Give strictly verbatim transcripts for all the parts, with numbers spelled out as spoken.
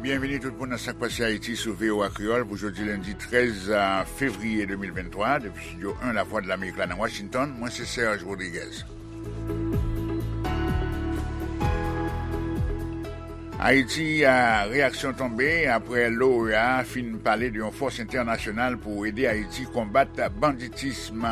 Byenveni tout moun nan Sak Pase Ayiti sou V O A Kreyòl pou jodi lendi trèz fevriye de mil venntwa, depi Estidyo en Lavwadlamerik la nan Washington, mwen se Serge Rodriguez. Ayiti, a, reyaksyon tonbe apre l'O E A fin pale de yon fòs entènasyonal pou ede Ayiti konbat banditism.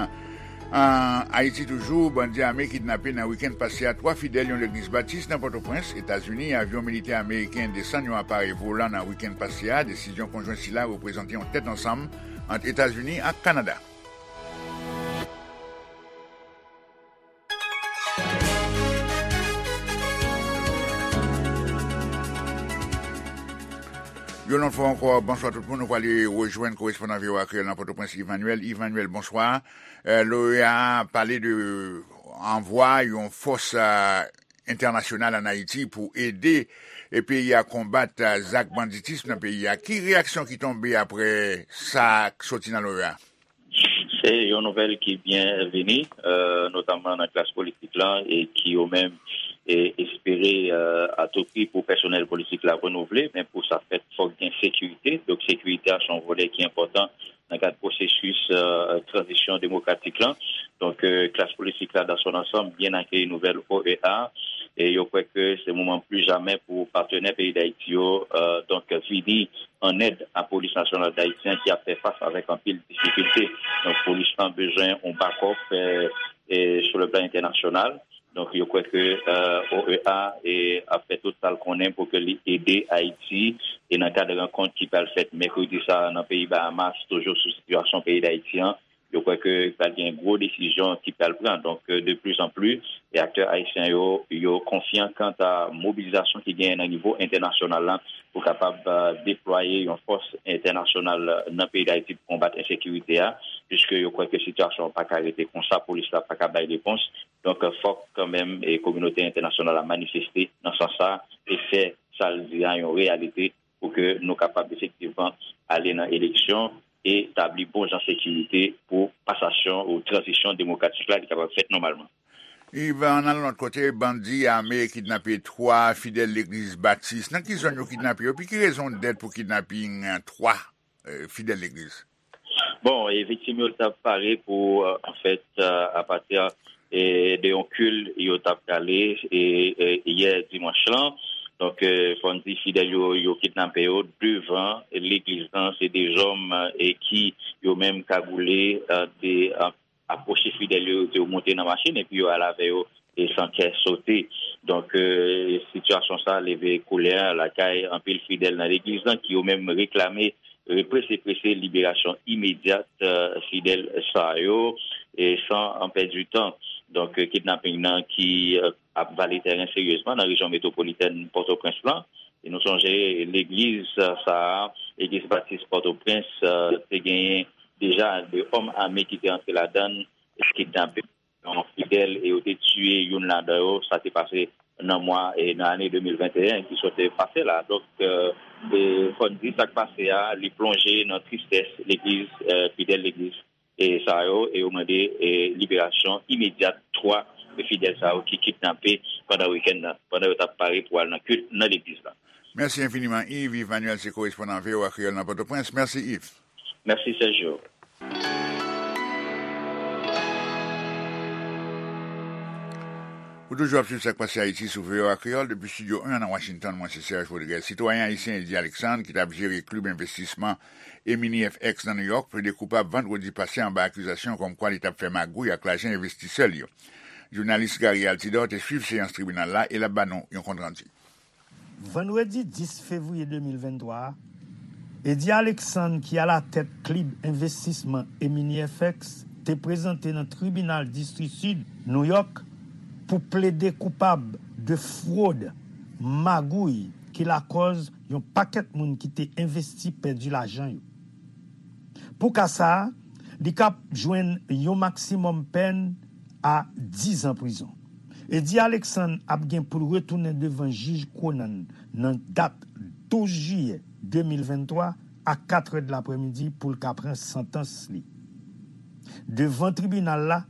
An Ayiti toujou, bandi ame kidnape nan wikenn pase a twa fidèl yon legliz batis nan Pòtoprens, Etazini. Avyon militè ameriken desann yon aparèy volan nan wikenn pase a. Desizyon konjwen sila reprezante yon tèt ansanm ant Etazini ak Kanada. Yon lòt fwa ankò, bonswa tout moun. Nou prale rejwenn korespondan V O A Kreyòl nan Pòtoprens, Yves Manuel. Yves Manuel, bonswa. Eh, l'O E A pale de anvwa yon fòs, eh, entènasyonal ann Ayiti pou ede, eh, peyi a konbat, eh, zak banditism nan peyi a. Ki reyaksyon ki tonbe apre sa k soti nan l'O E A? Se yon nouvèl ki byenveni, eh, notamman nan klas politik la, e ki yo menm, eh, espere, eh, a tou pri pou pèsonèl politik la renouvle, men pou sa fèt, fòk gen sekirite. Donk, sekirite a se yon volè ki enpòtan nan kad pwosesis, eh, tranzisyon demokratik la. Donk, eh, klas politik la, dans son ensemble, byen akeyi nouvèl O E A, e yo kwè ke se moman pli jamè pou patnè peyi Dayiti yo, eh, donk, vini an èd a Polis Nasyonal Dayiti an ki ap fè fas avèk anpil difikilte. Donk, polis lan bezwen yon bakòp, eh, eh, sou le plan entènasyonal. Donk, yo kwè ke, eh, O E A, eh, ap fè tout sa l konnen pou ke li ede Ayiti, e nan kad rankont ki pral fèt mèkredi sa a nan peyi Bahamas, toujou sou sitiyasyon peyi Dayiti an, yo kwè ke pral gen gwo desizyon ki pral pran. Donk, eh, de plus en plus, e aktè ayisyen yo, yo konfyan kanta mobilizasyon ki genyen nan nivo entènasyonal la pou kapab, eh, deplwaye yon fòs entènasyonal nan peyi Dayiti pou konbat ensekirite a, piske yo kwè ke sitiyasyon an pa ka rete konsa, polis la pa ka bay repons. Donk, fòk kanmenm, eh, kominote entènasyonal la manifeste nan sans sa e fè sa l di a yon reyalite pou ke nou kapab efektivman ale nan eleksyon e tabli bon jan sekirite pou pasasyon ou tranzisyon demokratik la li kapab fèt nòmalman. Yves, ann al lòt kote, bandi ame kidnape twa fidèl legliz batis. Nan ki zòn yo kidnape yo? Epi ki rezon dèt pou kidnaping twa, eh, fidèl legliz? Bon, e viktim yo t ap pare pou, eh, anfèt, eh, apati, eh, de yon kil yo t ap prale, e, e, yè dimanch lan. Donk, eh, fò n di fidèl yo, yo kidnape yo devan legliz lan. Se de zòm, eh, ki yo menm kagoule, eh, te, eh, apwoche fidèl yo, yo monte nan machin epi yo al avè yo e san kè sote. Donk, eh, sitiyasyon sa leve kolè lakay anpil fidèl nan legliz lan ki yo menm reklame, eh, prese prese liberasyon imedyat, eh, fidèl sa yo, e san an pèdi tan. Donk, eh, kidnaping nan ki, eh, ap vale tèren seryezman nan rejyon metwopolitèn Pòtoprens lan. E nou sonje legliz, eh, sa a, Legliz Batis Pòtoprens, eh, te genyen deja de òm ame ki te antre ladan l, kidnape yon fidèl e yo te tiye youn ladan yo. Sa te pase nan mwa, e nan ane de mil venteyen ki sot pase la. Donk, eh, e fò n di sa k pase a, li plonje nan tristès legliz, eh, fidèl legliz, e sa yo, e yo mande, e liberasyon imedyat twa fidèl sa yo ki kidnape pandan wikenn nan, pandan yo t ap pare pou al nan kilt nan legliz la. Mèsi enfiniman, Yves. Yves Manuel se korespondan V O A Kreyòl nan Pòtoprens. Mèsi, Yves. Mèsi, Sergio. Ou toujou ap swiv Sak Pase Ayiti sou V O A Kreyòl depi Estidyo en nan Washington. Mwen se Serge Rodriguez. Sitwayen ayisyen Eddy Alexandre, ki t ap jere klib envestisman Emini F X nan Nouyòk, plede koupab vandredi pase anba akizasyon kòmkwa li t ap fè magouy ak lajan envestisè l yo. Jounalis Gary Altidor te swiv seyans tribinal la e l ap ba nou yon kontrandi. Vandredi dis fevriye de mil venntwa a, Eddy Alexandre, ki alatèt klib envestisman Emini F X, te prezante nan tribinal distri sid Nouyòk pou plede koupab de fwod, magouy, ki lakòz yon pakèt moun ki te envesti pèdi lajan yo. Pou ka sa a, li kab jwenn yon maksimòm pèn a diz an prizon. Eddy Alexandre ap gen pou l retounen devan jij Conan nan dat douz jiyè de mil venntwa a katrè de laprèmidi pou l ka pran santans li. Devan tribinal la,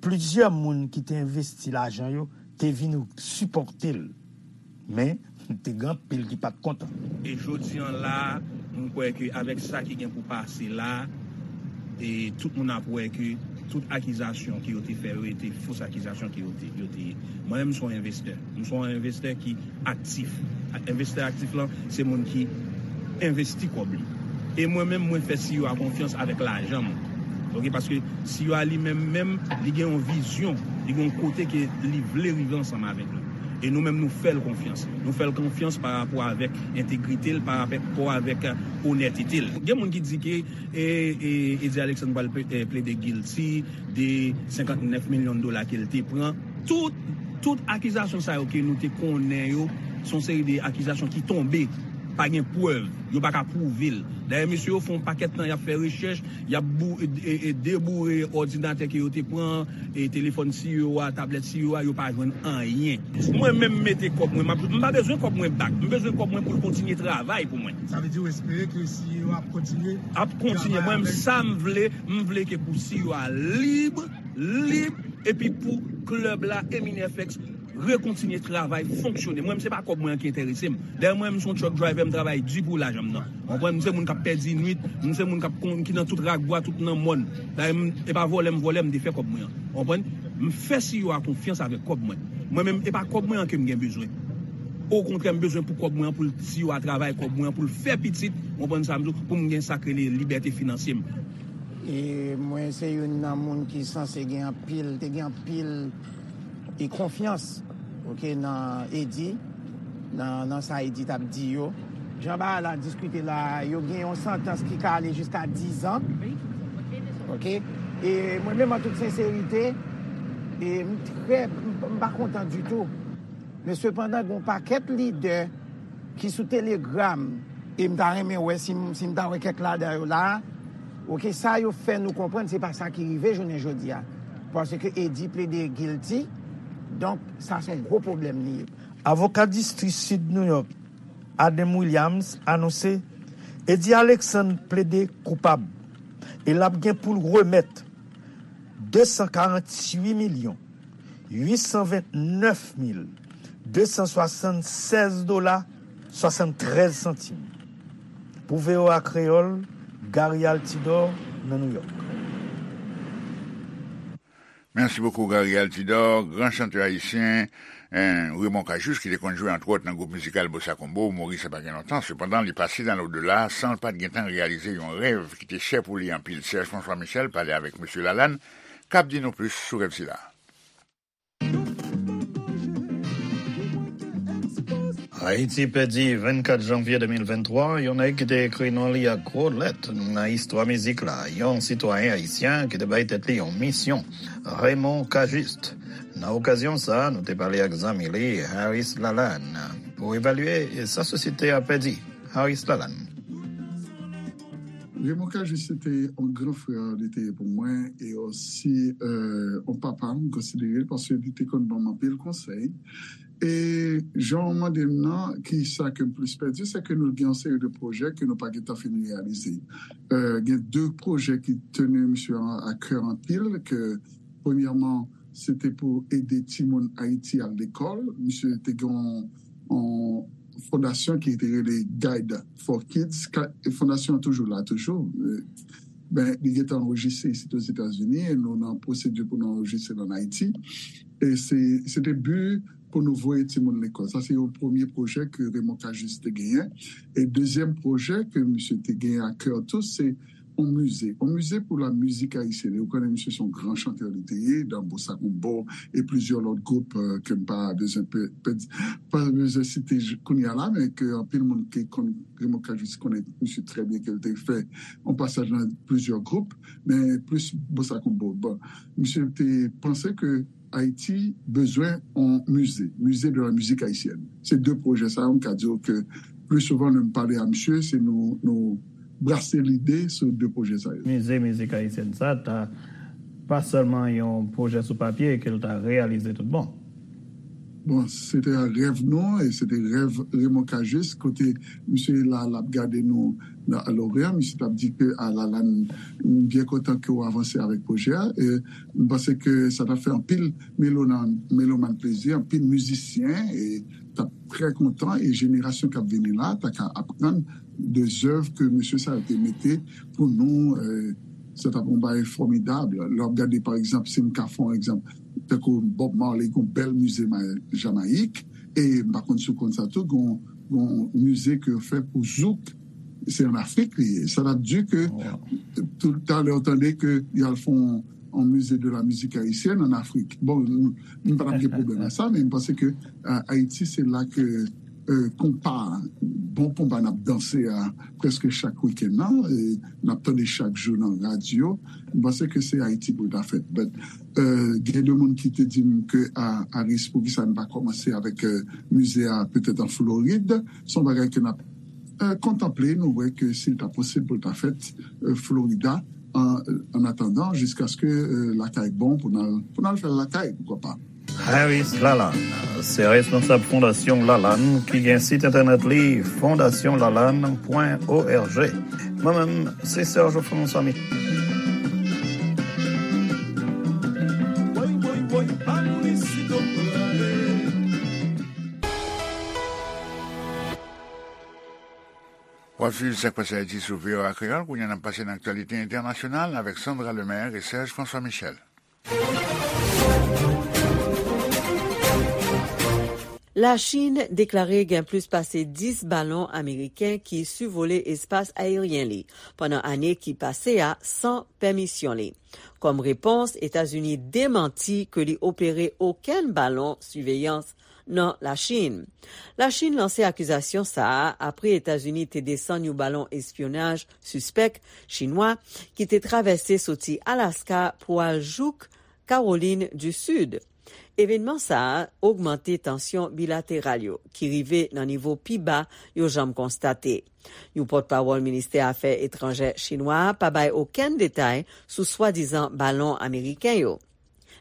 plizyè moun ki te envesti lajan yo te vin sipòte l. Men, te gen anpil ki pa t kontan. E jodi an la, m kwè ke avèk sa ki gen pou pase la, e tout moun ap wè ke tout akizasyon ke yo te fè yo, e te fos akizasyon ke yo te, yo te ye. Mwen menm, m se yon envestè. M se yon envestè ki aktif. Envestè aktif lan, se moun ki envesti kòb li. E mwen menm, mwen fè C E O a konfyans avèk lajan mwen. Ok, paske C E O a li menm, menm, li gen yon vizyon, li gen yon kote ke li vle rive ansanm avèk nou. E nou menm, nou fè l konfyans. Nou fè l konfyans pa rapò avèk entegrite l, pa rapò avèk onètete l. Gen moun ki di ke e, e, Eddie Alexandre pral plede guilty de senkant nèf milyon dola ke l te pran. Tout, tout akizasyon sa yo ke nou te konnen yo, se yon seri de akizasyon ki tonbe, pa gen prèv, yo pa ka pwouve l. Dayè, mesye yo fè yon pakèt tan y ap fè rechèch, y ap deboure òdinatè ke yo te pran, e telefòn C E O a, tablèt C E O a, yo pa jwenn anyen. Mwen menm, m mete kòb mwen, m pa bezwen kòb mwen back, m bezwen kòb mwen pou l kontinye travay pou mwen. Sa vle di w espere ke C E O a ap kontinye? Ap kontinye. Mwen menm, sa m vle, m vle ke pou C E O a lib, lib, epi pou klèb la, Emine F X, rekontinye travay, fonksyone. Mwen, se pa kòb mwen an ki enterese m. Dayè, mwen, m se yon truck driver, m travay di pou lajan m nan. Ou konprann? M se moun k ap pèdi nwit, m se moun k ap kon, ki nan tout rak bwa, tout nan mòn. Dayè, e pa vòlè m vòlè, m te fè kòb mwen an. Ou konprann? M fè C E O a konfyans avèk kòb mwen. Mwen menm, e pa kòb mwen an ke m gen bezwen. Okontrè, m bezwen pou kòb mwen an, pou C E O a travay kòb mwen an, pou l fè pitit, ou konprann sa m di w, pou m gen sa k rele libète finansye m. E mwen se youn nan moun ki sanse gen anpil, te gen anpil e konfyans, ok, nan Eddy, nan, nan sa Eddy t ap di yo. Jan bagay la diskite la, yo gen yon santans ki ka ale jiska dizan. Ok? E mwen menm, an tout senserite, e m trè, m pa kontan ditou. Men sepandan, gen yon pakèt lidè ki sou Telegram, e m ta renmen wè si m, si m ta wè kèk ladan yo la, ok, sa yo fè nou konprann se pa sa ki rive jounen jodi a. Paske Eddy plede guilty, donk sa se yon gwo pwoblèm li ye. Avoka distri Sid New York, Adam Williams, anonse Eddy Alexandre plede koupab e l ap gen pou l remèt de san karanntuit milyon uit san vennèf mil de san swasannsèz dola swasanntrèz santim. Pou V O A Kreyòl, Gary Altidor nan Nouyòk. Mèsi bokou Gary Altidor, gran chantè ayisyen, Raymond Cajuste, ki te konn jwe antwòt nan gwoup mizikal Bossa Combo, mouri sa pa gen lontan. Sepandan, li pase nan lodela san l pa t gentan reyalize yon rèv ki te chè pou li anpil. Serge François Michel pale avèk Mesye Lalanne, k ap di nou plis sou rèv sila. Ayiti pèdi vennkat janvye de mil venntwa yon nèg ki te ekri non li ak gwo lèt nan istwa mizik la, yon sitwayen ayisyen ki te bay tèt li yon misyon, Raymond Cajuste. Nan okazyon sa a, nou te pale ak zanmi li, Harris Lalanne, pou evalye sa sosyete a pèdi. Harris Lalanne. Raymond Cajuste se te yon gran frè li te ye pou mwen e osi yon papa m konsidere l paske li te konn ban m anpil konsèy. E jan w mande m nan, ki sa ke m plis pèdi, se ke nou gen yon seri de pwojè ke nou pa gentan fin reyalize. Gen de pwojè ki teni misye a kè anpil, ke premyèman, se te pou ede timoun Ayiti al lekòl. Misye te gen yon fondasyon ki te rele Guide for Kids. Fondasyon an toujou la, toujou. Ben, li gentan anrejistre isit Ozetazini e nou nan pwosedi pou nou anrejistre l ann Ayiti. E se, se te bi pou nou voye timoun lekòl. Sa se yon premye pwojè ke Raymond Cajuste te genyen. E dezyèm pwojè ke misye te genyen a kè tou, se yon mize. Yon mize pou la mizik ayisyèn. E ou konnen misye se yon gran chantè li te ye, dan Bossa Combo e plizyè lòt gwoup ke m pa bezwen pa bezwen site kounye a la, men ke anpil moun ki konn Raymond Cajuste konnen misye trè byen, ke l te fè yon pasaj nan plizyè gwoup, men plis Bossa Combo. Bon, misye te panse ke Ayiti bezwen yon mize, mize de la mizik ayisyèn. Se de pwojè sa yo, m ka di w ke pli souvan lè m pale a misye, se nou, nou brase lide sou de pwojè sa yo. Mize mizik ayisyèn sa ta pa sèlman yon pwojè sou papye ke l ta reyalize tout bon. Bon, se te rèv nou, e se te rèv Raymond Cajuste, kote misye la, l ap gade nou nan, a Lorient, misye t ap di ke, a, Lalane, m byen kontan ke w avanse avèk pwojè a, e m panse ke sa t ap fè anpil melonan-, melomàn plezi, anpil mizisyen, e t ap trè kontan, e jenerasyon k ap vini la, ta ka aprann de zèv ke mesye sa yo te mete pou nou, e, se t ap yon bagay fòmidab. Lè w ap gade, pa egzanp, si m ka fè yon egzanp, tankou Bob Marley, gen yon bèl mize ma-, Jamayik, e m pa konn si w konn sa tou, gen yon, gen yon mize ke yo fè pou zouk, se ann Afrik li ye. Sa t ap di ke, toutalè, w tande ke y al fè yon, yon mize de la mizik ayisyèn ann Afrik. Bon, m, m pa t ap gen pwoblèm ak sa, men m panse ke, a, Ayiti, se la ke, e, konpa, bon konpa n ap danse a prèske chak wikenn nan, e n ap tande chak jou nan radyo. M panse ke se Ayiti pou l ta fèt. But, e, gen de moun ki te di m ke, a, Aris, poukisa n pa kòmanse avèk, e, mize a petèt an Florid. Se yon bagay ke n ap, e, kontanple, nou wè ke si l ta posib pou l ta fèt, e, Florida, an, an atandan, jiskaske, e, lakay bon pou n al, pou n al fè l lakay, poukwa pa. Harris Lalanne se responsab Fondasyon Lalanne ki gen sit entènèt li fondasyon lalanne pwen org. Mwen menm, se Serge François Michel. W ap swiv Sa k pase Ayiti sou V O A Kreyòl. Kounye a, n ap pase nan aktyalite entènasyonal avèk Sandra Lemaire e Serge François Michel. Lachin deklare gen plis pase dis balon ameriken ki sivole espas ayeryen li pandan ane ki pase a san pèmisyon li. Kòm repons, Etazini demanti ke li opere okenn balon siveyans nan Lachin. Lachin lanse akizasyon sa a apre Etazini te desann yon balon espyonaj sispèk chinwa ki te travèse soti Alaska pou al jouk Kawolin di Sid. Evènman sa a ogmante tansyon bilateral yo, ki rive nan nivo pi ba yo janm konstate. Yon pòtpawòl ministè afè etranjè chinwa a pa bay okenn detay sou swadizan balon ameriken yo.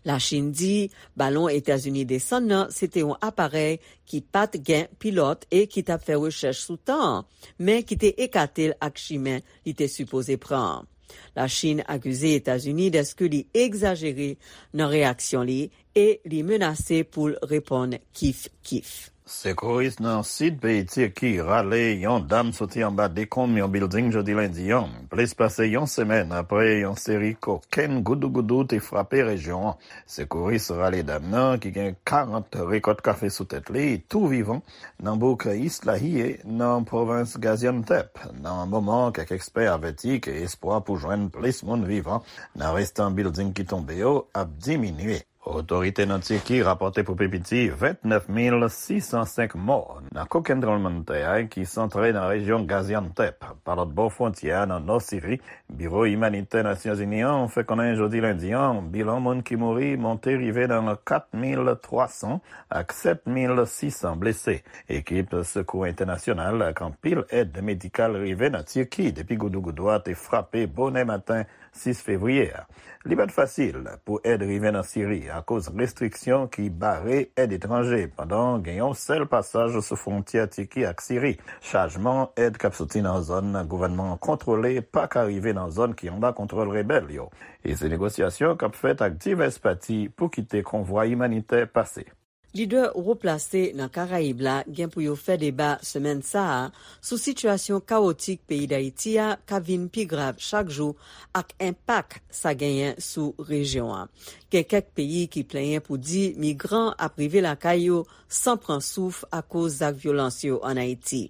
Lachin di balon Etazini desann nan se te yon aparèy ki pa t gen pilòt e ki t ap fè rechèch sou tan an, men ki te ekate l ak chimen li te sipoze pran an. Lachin akize Etazini dèske li egzajere nan reyaksyon li e li menase pou l reponn kif kif. Sekouris nan sid peyi Tiki rale yon dam soti anba dekonm yon bilding jodi lendi an, plis pase yon semèn apre yon seri kokenn goudougoudou te frape rejyon an. Sekouris rale dam nan, ki gen karant rekòt kafe sou tèt li, tou vivan, nan bouk Islahiye, nan pwovens Gaziantep, nan moman kèk ekspè avèti ke espwa pou jwenn plis moun vivan nan restan bilding ki tonbe yo ap diminye. Otorite nan Tiki rapòte pou pi piti vennèf mil sis san senk mò nan kokenn tranblemanntè ki santre nan rejyon Gaziantep, pa lòt bò fwontyè a nan nò Siri. Biwo Imanitè Nasyonzini an fè konnen jodi lendi an, bilan moun ki mouri monte rive nan kat mil twa san ak sèt mil sis san blese. Ekip sekou entènasyonal ak anpil èd medikal rive nan Tiki depi goudougoudou a te frape bonè maten sis fevriye a. Li pa t fasil pou èd rive nan Siri akoz restriksyon ki bare èd etranje, pandan gen yon sèl pasaj sou fwontyè Tiki ak Siri. Chajman èd k ap soti nan zòn gouvènman an kontwole pa ka rive nan zòn ki anba kontwòl rebèl yo. E se negosyasyon k ap fèt ak divès pati pou kite konvwa imanitè pase. Lidè wo plase nan Karayib la gen pou yo fè deba semèn sa a sou sitiyasyon kawotik peyi Dayiti a k ap vin pi grav chak jou ak enpak sa genyen sou rejyon an. Gen kèk peyi ki plenyen pou di migran ap rive lakay yo san pran souf akoz zak vyolans yo ann Ayiti.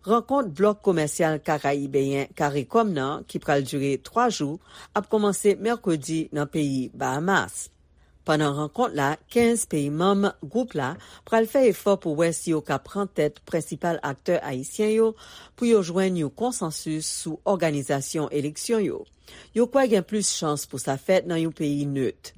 Rankont blòk komèsyal karayibeyen Karikòm nan, ki pral dire twa jou, ap kòmanse mèkredi nan peyi Bahamas. Pandan rankont la, kenz peyi manm gwoup la pral fè efò pou wè si yo ka pran tèt prensipal aktè ayisyen yo pou yo jwenn yon konsansis sou òganizasyon eleksyon yo. Yo kwè gen plis chans pou sa fèt nan yon peyi nèt.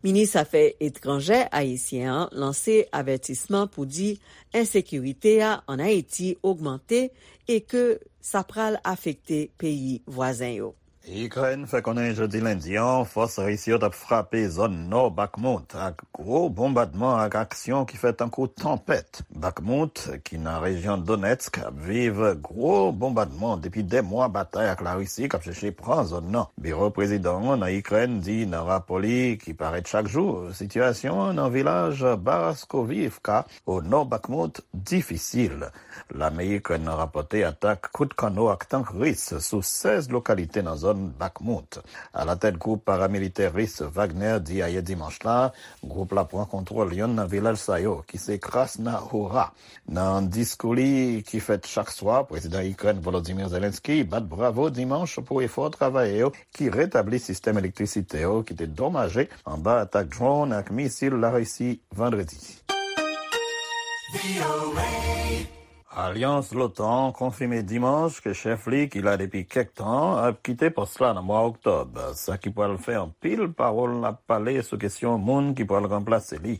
Minis afè etranjè ayisyen an lanse avètisman pou di ensekirite a ann Ayiti ogmante e ke sa pral afekte peyi vwazen yo. Ikrèn fè konnen jodi lendi an, fòs ris yo t ap frape zòn nò Bakhmut ak gwo bonbadman ak aksyon ki fè tankou tanpèt. Bakhmut, ki nan rejyon Donetsk, ap viv gwo bonbadman depi dè mwa batay ak Larisi k ap chèche pran zòn nan. Biwo prezidan an nan Ikrèn di nan rapò li ki parèt chak jou, sitiyasyon an nan vilaj Baraskovivka, o nò Bakhmut, difisil. Lame Ikrèn nan rapòte atak kout kanno ak tank ris sou sèz lokalite nan zòn Bakhmut. Alatèt gwoup paramilitè ris Wagner di ayè dimanch la, gwoup la pran kontwòl yonn nan vilaj sa yo, ki se Krasna Hora. Nan diskou li ki fèt chak swa, prezidan Ikrèn Volodymyr Zelensky bat bravo dimanch pou efò travayè yo ki retabli sistèm elektrisite yo ki te domaje anba atak drone ak misil Larisi vandredi. Alyans l'OTAN konfime dimanch ke chèf li, ki la depi kèk tan, ap kite pòs la nan mwa oktòb, sa ki pral fè anpil pawòl ap pale sou kesyon moun ki pral ranplase li.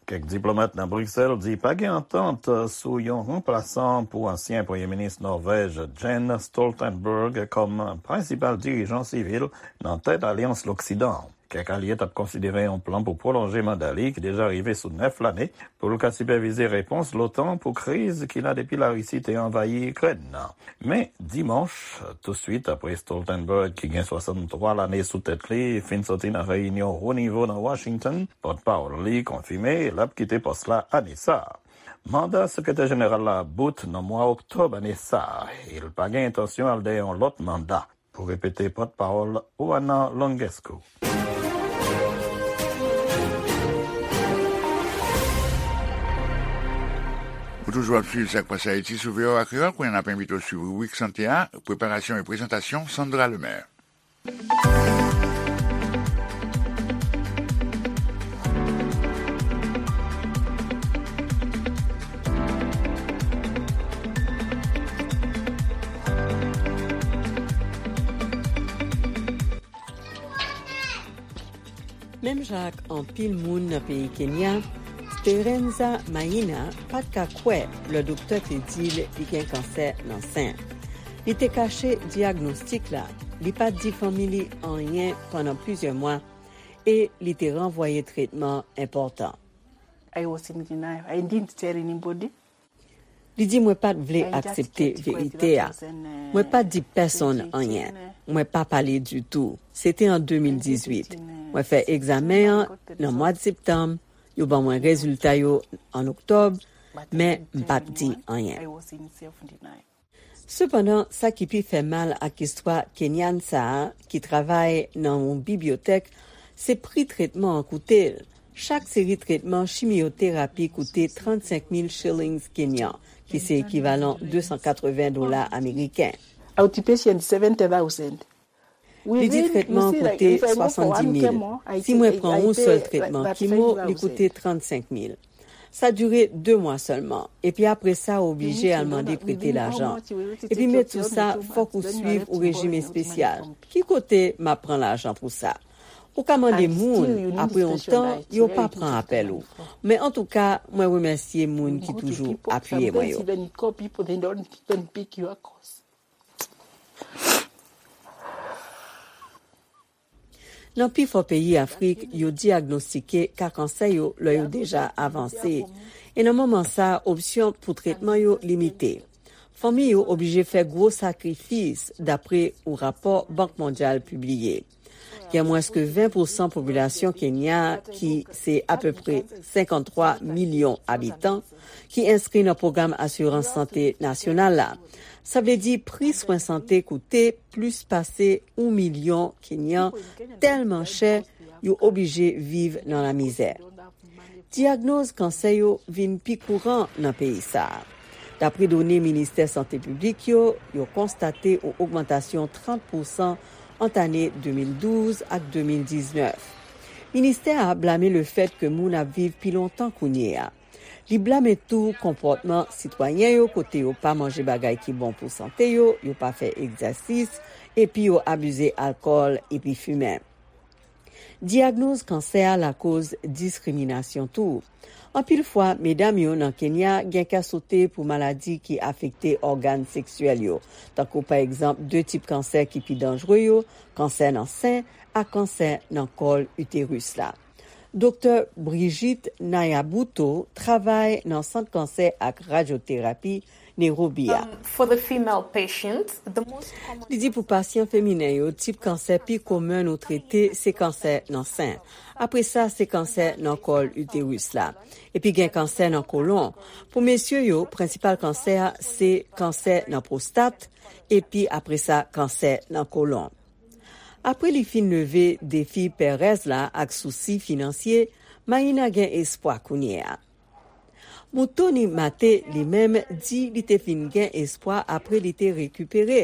Kèk diplomat nan Briksèl di pa gen antant sou yon ranplasan pou ansyen premye minis Nòvèj Jens Stoltenberg kòm prensipal dirijan sivil nan tèt alyans Loksidan an. Kèk alye t ap konsidere yon plan pou pwolonje manda li, ki deja rive sou nèf lane, pou l ka sipèvize repons l'OTAN pou kriz ki la depi Larisi te anvayi Ikrèn nan. Men, dimanch, touswit apre Stoltenberg, ki gen swasanntwa lane sou tèt li, fin soti nan reyinyon wo nivo nan Washington, pòtpawòl li konfime l ap kite pòs la ane sa a. Manda sekretè jeneral la ap bout nan mwa oktòb ane sa a, e l pa gen entansyon al dèyè yon lòt manda. Pou repete, pòtpawòl Juana Longescu. Ou toujou ap swiv Sa k Pase Ayiti sou V O A Kreyòl. Kounye a n ap envite w swiv ribrik sante a, preparasyon e prezantasyon Sandra Lemaire. Menm jan ak anpil moun nan peyi Kenya, Speranza Maina pa t ka kwè lè doktè te di l li gen kansè nan sen. Li te kache dyagnostik la, li pa t di fanmi li anyen pandan plizyè mwa, e li te ranvwaye tretman enpòtan. I was in denial. I didn't tell anybody. Li di, "Mwen pa t vle aksepte verite a. Mwen pa t di pèsonn anyen. Mwen pa pale ditou. Se te an de mil dizuit. Mwen fè egzamen an nan mwa septanm. Yo ban mwen rezilta yo an oktòb, men m pa t di anyen." Sepandan, sa ki pi fè mal ak istwa Kenyan sa a, ki travay nan yon bibliyotèk, se pri tretman an koute l. Chak seri tretman chimyoterapi koute trannsenk mil shillings kenyan, ki se ekivalan de san katreven dola ameriken. Outpatient, seventy thousand. Li di tretman an koute swasanndis mil. Si mwen pran yon sèl tretman kimo, li koute trannsenk mil. Sa dire de mwa sèlman, epi apre sa, ou oblije al mande prete lajan. Epi met sou sa, fòk ou swiv ou rejim espesyal. Ki kote m ap pran lajan pou sa? Ou ka mande moun, apre yon tan, yo pa pran apèl ou. Men antouka, mwen remèsye moun ki toujou apiye mwen yo. Nan pifò peyi Afrik, yo dyagnostike ka kansè yo lè yo deja avanse. E nan moman sa a, opsyon pou tretman yo limite. Fanmi yo oblije fè gwo sakrifis, dapre yon rapò Bank Mondyal pibliye. Gen mwens ke ven pousan popilasyon Kenya, ki se apeprè senkanntwa milyon abitan, ki enskri nan pwogram asirans sante nasyonal la. Sa vle di pri swen sante koute plis pase yon milyon Kenyan tèlman chè yo oblije viv nan lamizè. Dyagnoz kansè yo vin pi kouran nan peyi sa a. Dapre done Ministè Sante Piblik yo, yo konstate yon ogmantasyon trant pousan ant ane de mil douz ak de mil diznèf. Ministè a blame lefèt ke moun ap viv pi lontan kounye a. Li blame tou konpòtman sitwayen yo, kote yo pa manje bagay ki bon pou sante yo, yo pa fè egzèsis, epi yo abize alkòl epi fimen. Dyagnoz kansè a lakoz diskriminasyon tou. Anpil fwa, medam yo nan Kenya gen kè sote pou maladi ki afekte ògàn seksyèl yo, tankou pa egzanp de tip kansè ki pi danjre yo, kansè nan sen ak kansè nan kòl iteris la. Doktè Brigitte Nayabuto travay nan Sant Kansè ak Radyoterapi Nairobi a. Um, for the female patients, the most common Li di pou pasyan feminen yo, tip kansè pi komen nou trete se kansè nan sen. Apre sa, se kansè nan kòl iteris la. Epi gen kansè nan kolon. Pou mesye yo, prensipal kansè a se kansè nan pwostat, epi apre sa, kansè nan kolon. Apre li fin leve defi pèrèz la ak sousi finansye, Maïna gen espwa kounye a. Moutouni Mate, li menm, di li te fin gen espwa apre li te rekipere.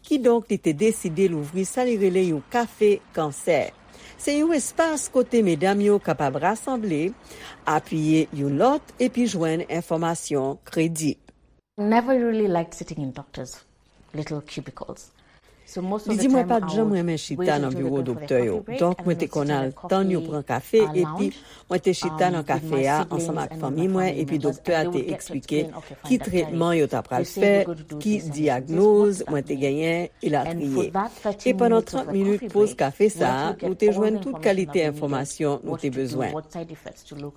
Kidonk, li te deside louvri sa li rele yon kafe kansè. Se yon espas kote medam yo kapab rasanble, apiye youn lòt, epi jwenn enfòmasyon kredib. Never really liked sitting in doctors' little cubicles. Li di, mwen pa t janm renmen chita nan biwo doktè yo. Donk, mwen te konn al tann yo pran kafe, epi mwen te chita nan kafe a ansanm ak fanmi mwen, epi doktè a te eksplike ki tretman yo ta pral fè, ki dyagnoz mwen te genyen, elatriye. E pandan trant minit poz kafe sa a, nou te jwenn tout kalite enfòmasyon nou te bezwen.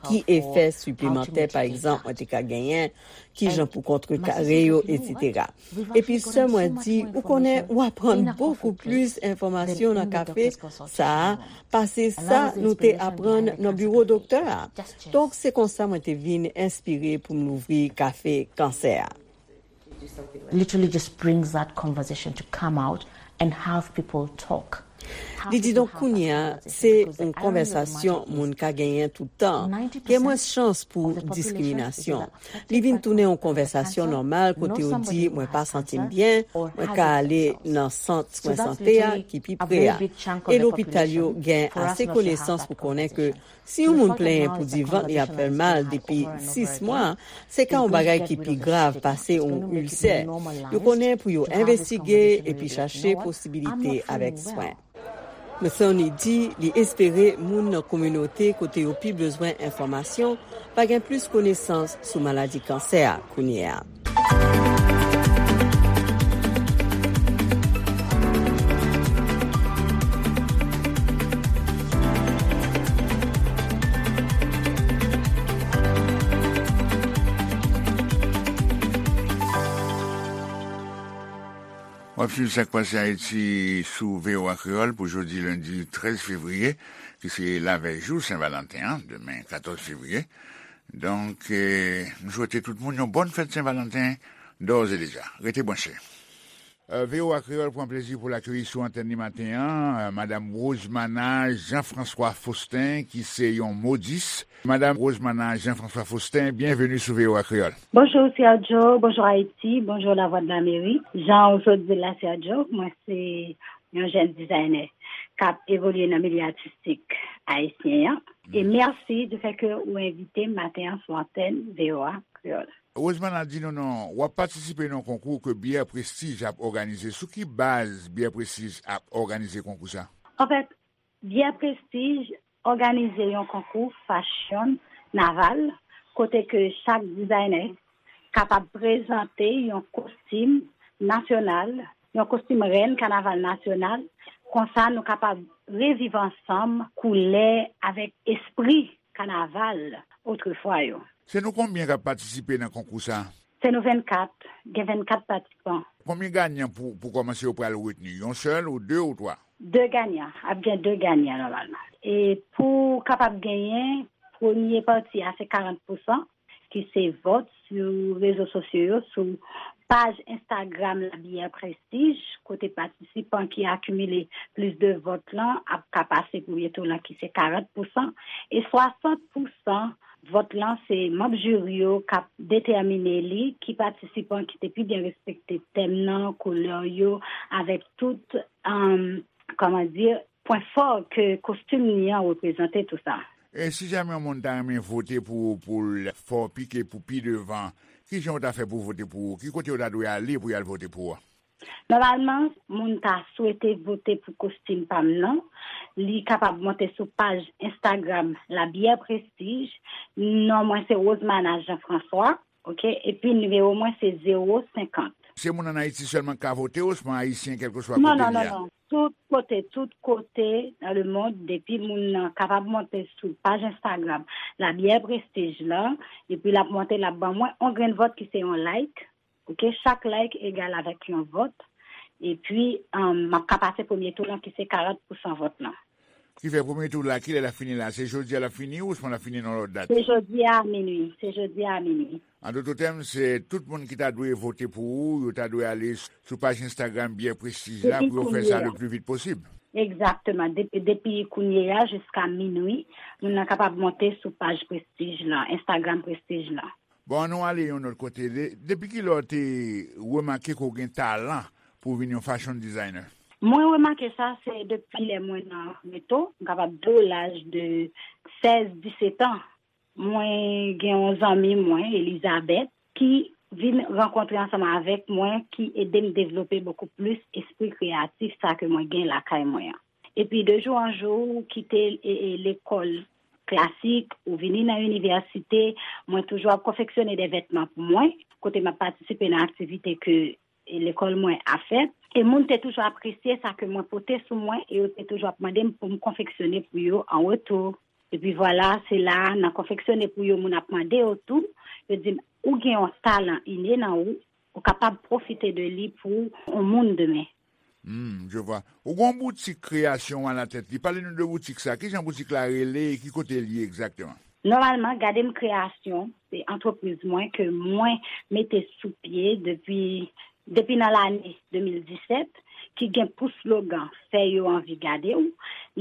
Ki efè siplemantè, pa egzanp, mwen te ka genyen, kijan pou kontrekare yo, etsetera. Epi sè mwen di, ou konnen, ou aprann bokou plis enfòmasyon nan kafe sa a pase sa nou te aprann nan biwo doktè a. Donk, se konsa mwen te vin enspire pou m louvri kafe kansè a. Literally just brings that conversation to come out and have people talk. Li di, donk, kounye a, se yon konvèsasyon moun ka genyen tout tan. Gen mwens chans pou diskriminasyon. Li vin tounen yon konvèsasyon nòmal kote yo di, mwen pa santi m byen, mwen ka ale nan sant swen sante a ki pi pre a. E lopital yo gen ase konesans pou konnen ke si yon moun plenyen pou di vant li ap fè l mal depi sis mwa, se ka yon bagay ki pi grav pase yon ilsè. Yo konnen pou yo envestige epi chache posibilite avèk swen. Moutouni di li espere moun nan kominote kote yo pi bezwen enfòmasyon va gen plis konesans sou maladi kansè a kounye a. W ap swiv Sa k Pase Ayiti sou V O A Kreyòl pou jodi lendi trèz fevriye, ki se lavèy jou Sen Valanten an, demen katòz fevriye. Donk, eh, nou swete tout moun yon bòn fèt Sen Valanten, dòz e deja. Rete branche. Eh, V O A Kreyòl pran plezi pou l akeyi sou antèn li maten an, eh, Madam Rosemana Jean-François Faustin, ki se yon modis. Madam Rosemana Jean-François Faustin, byenveni sou V O A Kreyòl. Bonjou, Sergio. Bonjou, Ayiti. Bonjou, Lavwadlamerik. Jan ou sot di l la, Sergio, mwen se yon jèn dizayner k ap evolye nan milye atistik ayisyen an. E mèsi du fait que ou envite m maten an sou antèn V O A Kreyòl. Rosemana, di nou non, w ap patisipe nan yon konkou ke Bière Prestige ap òganize. Sou ki baz Bière Prestige ap òganize konkou sa? Anfèt, Bière Prestige òganize yon konkou fashion naval, kote ke chak dizayner kapab prezante yon kostim nasyonal, yon kostim rèn kanaval nasyonal. Konsa, nou kapab reviv ansanm koulè avèk espri kanaval otrefwa yo. Se nou konbyen k ap patisipe nan konkou sa? Se nou vennkat, gen vennkat patisipan. Konbyen ganyan pou, pou kòmanse yo pral retni? Yon sèl ou de ou twa? De ganyan, ap gen de ganyan nòmalman. E pou kapab genyen, premye pati a se karant pousan, ki se vòt sou rezo sosyo yo, sou paj Instagram La Bière Prestige, kote patisipan ki akimile plis de vòt lan ap ka pase premye tou lan, ki se karant pousan, e swasant pousan vòt lan se manm jiri yo k ap detèmine li, ki patisipan ki te pi byen respekte tèm nan, koulè yo, avèk tout, um, kòman di, pwen fò ke kostim li an reprezante tou sa. E si jamè yon moun ta renmen vote pou ou, pou l fè w pike pou pi devan, ki jan w ta fè pou vote pou ou? Ki kote w ta dwe ale pou y al vote pou ou? Nòmalman, moun ta swete vote pou kostim pa m nan, li kapab monte sou paj Instagram La Bière Prestige. Non mwen se Rosemana Jean François, oke? Epi nimewo mwen se zewo senkant. Se moun ann Ayiti sèlman k ka vote, osnon Ayisyen, kèlkeswa kote li ye? Non, non, non, non. Tout kote, tout kote nan lemonn, depi moun nan kapab monte sou paj Instagram La Bière Prestige la, epi l ap monte, l ap ban mwen yon grenn vòt ki se yon like. Oke, chak like egal avèk yon vòt. Epi, um, m ap ka pase premye tou lan ki se karant pousan vòt lan. Ki fè premye tou la, kilè l ap fini la? Se jodi a l ap fini, osnon l ap fini nan lòt dat? Se jodi a minui. Se jodi a minui. An doto tèm, se tout moun ki ta dwe vote pou ou, yo ta dwe ale sou paj Instagram Bière Prestige la pou yo fè sa le pli vit posib. Egzakteman. Depi, depi kounye a jiska minui, moun nan kapab monte sou paj Prestige la, Instagram Prestige la. Bon, ann nou ale yon lòt kote. De, depi kilè w te remake ke w gen talan pou w vin yon fashion designer? Mwen remake sa, se depi lè mwen nan reto, m kapab di w laj de sèz, disèt an. Mwen gen yon zanmi mwen, Elizabeth, ki vin rankontre ansanm avèk mwen, ki ede m devlope bokou plis espri kreyatif sa ke mwen gen lakay mwen an. Epi de jou an jou, ou kite, e, e, lekòl klasik, ou vini nan inivèsite, mwen toujou ap konfeksyone de vètman pou mwen, kote m ap patisipe nan aktivite ke, e, lekòl mwen ap fè. E moun te toujou apresye sa ke mwen pote sou mwen, e yo te toujou ap mande m pou m konfeksyone pou yo an retou. Epi vwala, se la, nan konfeksyone pou yo, moun ap mande yo tou, yo di m, ou gen yon talan ine nan ou, ou kapab pwofite de li pou yon moun demen. Hmm, je vois. Ou gen yon boutik kreyasyon alatèt li. Pale nou de boutik sa. Kijan boutik la rele e ki kote l ye egzakteman? Nòmalman, Gade M Kreyasyon, se antrepriz mwen ke mwen mete sou pye depi, depi nan lane de mil disèt, ki gen pou slogan Fè yo anvi gade w.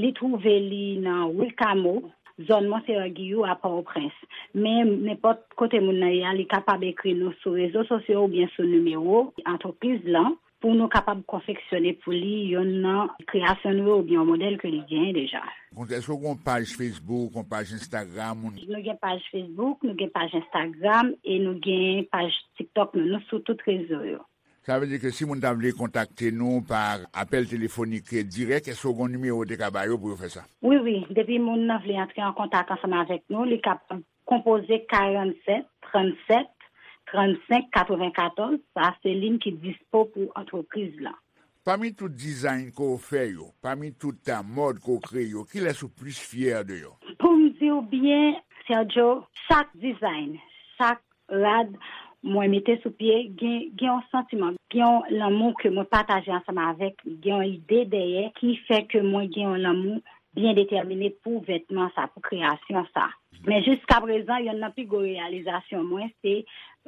Li twouve li nan Wi Kamo, zòn Monseyè Giyou a Pòtoprens. Men nenpòt kote moun nan ye a, li kapab ekri nou sou rezo sosyo oubyen sou nimewo antrepriz lan pou nou kapab konfeksyone pou li yonn nan kreyasyon nou yo oubyen yon modèl ke li genyen deja. Èske w gen yon paj Facebook, yon paj Instagram? Nou gen paj Facebook, nou gen paj Instagram e nou gen paj TikTok nou. Nou sou tout rezo yo. Sa vle di ke si moun ta vle kontakte nou pa apèl telefonik dirèk, èske w gen yon nimewo w te ka ba yo pou yo fè sa? Wi, wi. Depi moun nan vle antre an kontak ansanm avèk nou, li kapab konpoze karannsèt, trannsèt, trannsenk, katrevenkatòz. Sa se liy ki dispo pou antrepriz lan. Pami tout dizayn ke w fè yo, pami tout, a, mòd ke w kreye yo, kilès ou plis fyè de yo? Pou m di w byen, Sergio, chak dizayn, chak rad mwen mete sou pye, gen, gen yon santiman, gen yon lanmou ke mwen pataje ansanm avèk li, gen yon ide dèyè ki fè ke mwen gen yon lanmou byen detèmine pou vètman sa, pou kreyasyon sa. Men jiskaprezan, yonn nan pi gwo reyalizasyon mwen, se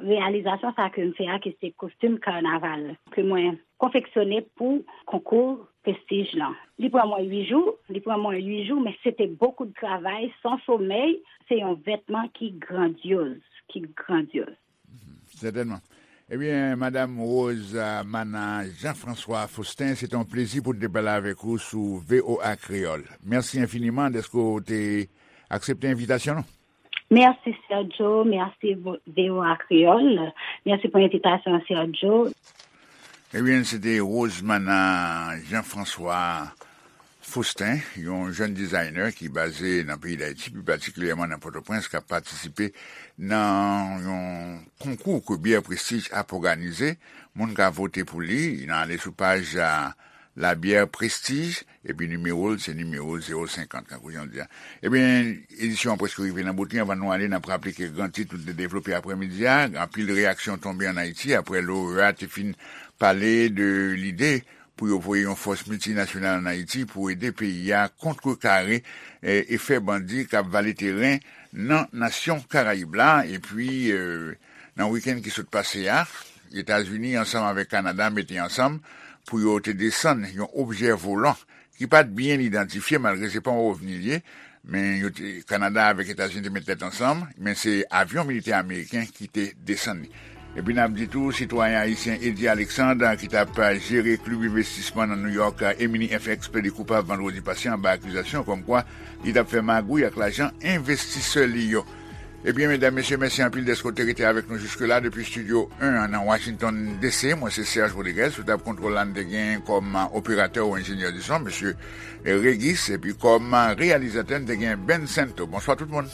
reyalizasyon sa ke m fè a, ki se kostim kanaval, ke mwen konfeksyone pou konkou Prestige lan. Li pran mwen uit jou, li pran mwen uit jou, men se te bokou de travay, san somèy. Se yon vètman ki grandyoz, ki grandyoz. Sètènman. Ebyen, Madam Rose, a, Mana Jean-François Faustin, se te yon plezi pou n te pale avèk ou sou V O A Kreyòl. Mèsi enfiniman dèske w te aksepte envitasyon nou. Mèsi, Sergio. Mèsi, vo-, V O A Kreyòl. Mèsi pou envitasyon an, Sergio. Ebyen, se te Rosemana Jean-François Faustin, yon jèn dizayner ki baze nan peyi Dayiti, pi patikilyèman nan Pòtoprens, k ap patisipe nan yon konkou ke Bière Prestige ap òganize. Moun ka vote pou li, nan ale sou paj, a, La Bière Prestige, epi nimewo l, se nimewo zewo senkant, kankou jan w di a. Ebyen, edisyon an prèske rive nan bout li. Anvan nou ale, n ap raple ke gran tit nou te devlope aprèmidi a, anpil reyaksyon tonbe ann Ayiti aprè loreya te fin pale de lide pou yo voye yon fòs miltinasyonal ann Ayiti pou ede peyi a kontrekare, e, efè bandi k ap vale teren nan nasyon Karayib la. Epi, e, nan wikenn ki sot pase a, Etazini ansanm avèk Kanada mete ansanm pou yo te desann yon objè volan ki pa t byen idantifye, malgre se pa yon ovni l ye, men yo te, Kanada avèk Etazini te met tèt ansanm, men se avyon militè ameriken ki te desann li. Epi n ap di tou, sitwayen ayisyen Eddy Alexandre, ki t ap jere klib envestisman nan New York, Emini F X, plede koupab vandredi pase anba akizasyon kòmkwa li t ap fè magouy ak lajan envestisè li yo. Ebyen, medam, mesye, mèsi anpil dèske w te rete avèk nou jiske la depi Studio en an nan Washington D C. Mwen se Serge Rodriguez, sou tab kontwòl la n te gen kòm operatè ou enjenyè di son, mesye Regis, epi kòm reyalizatè n te gen Ben Santo. Bonswa tout moun.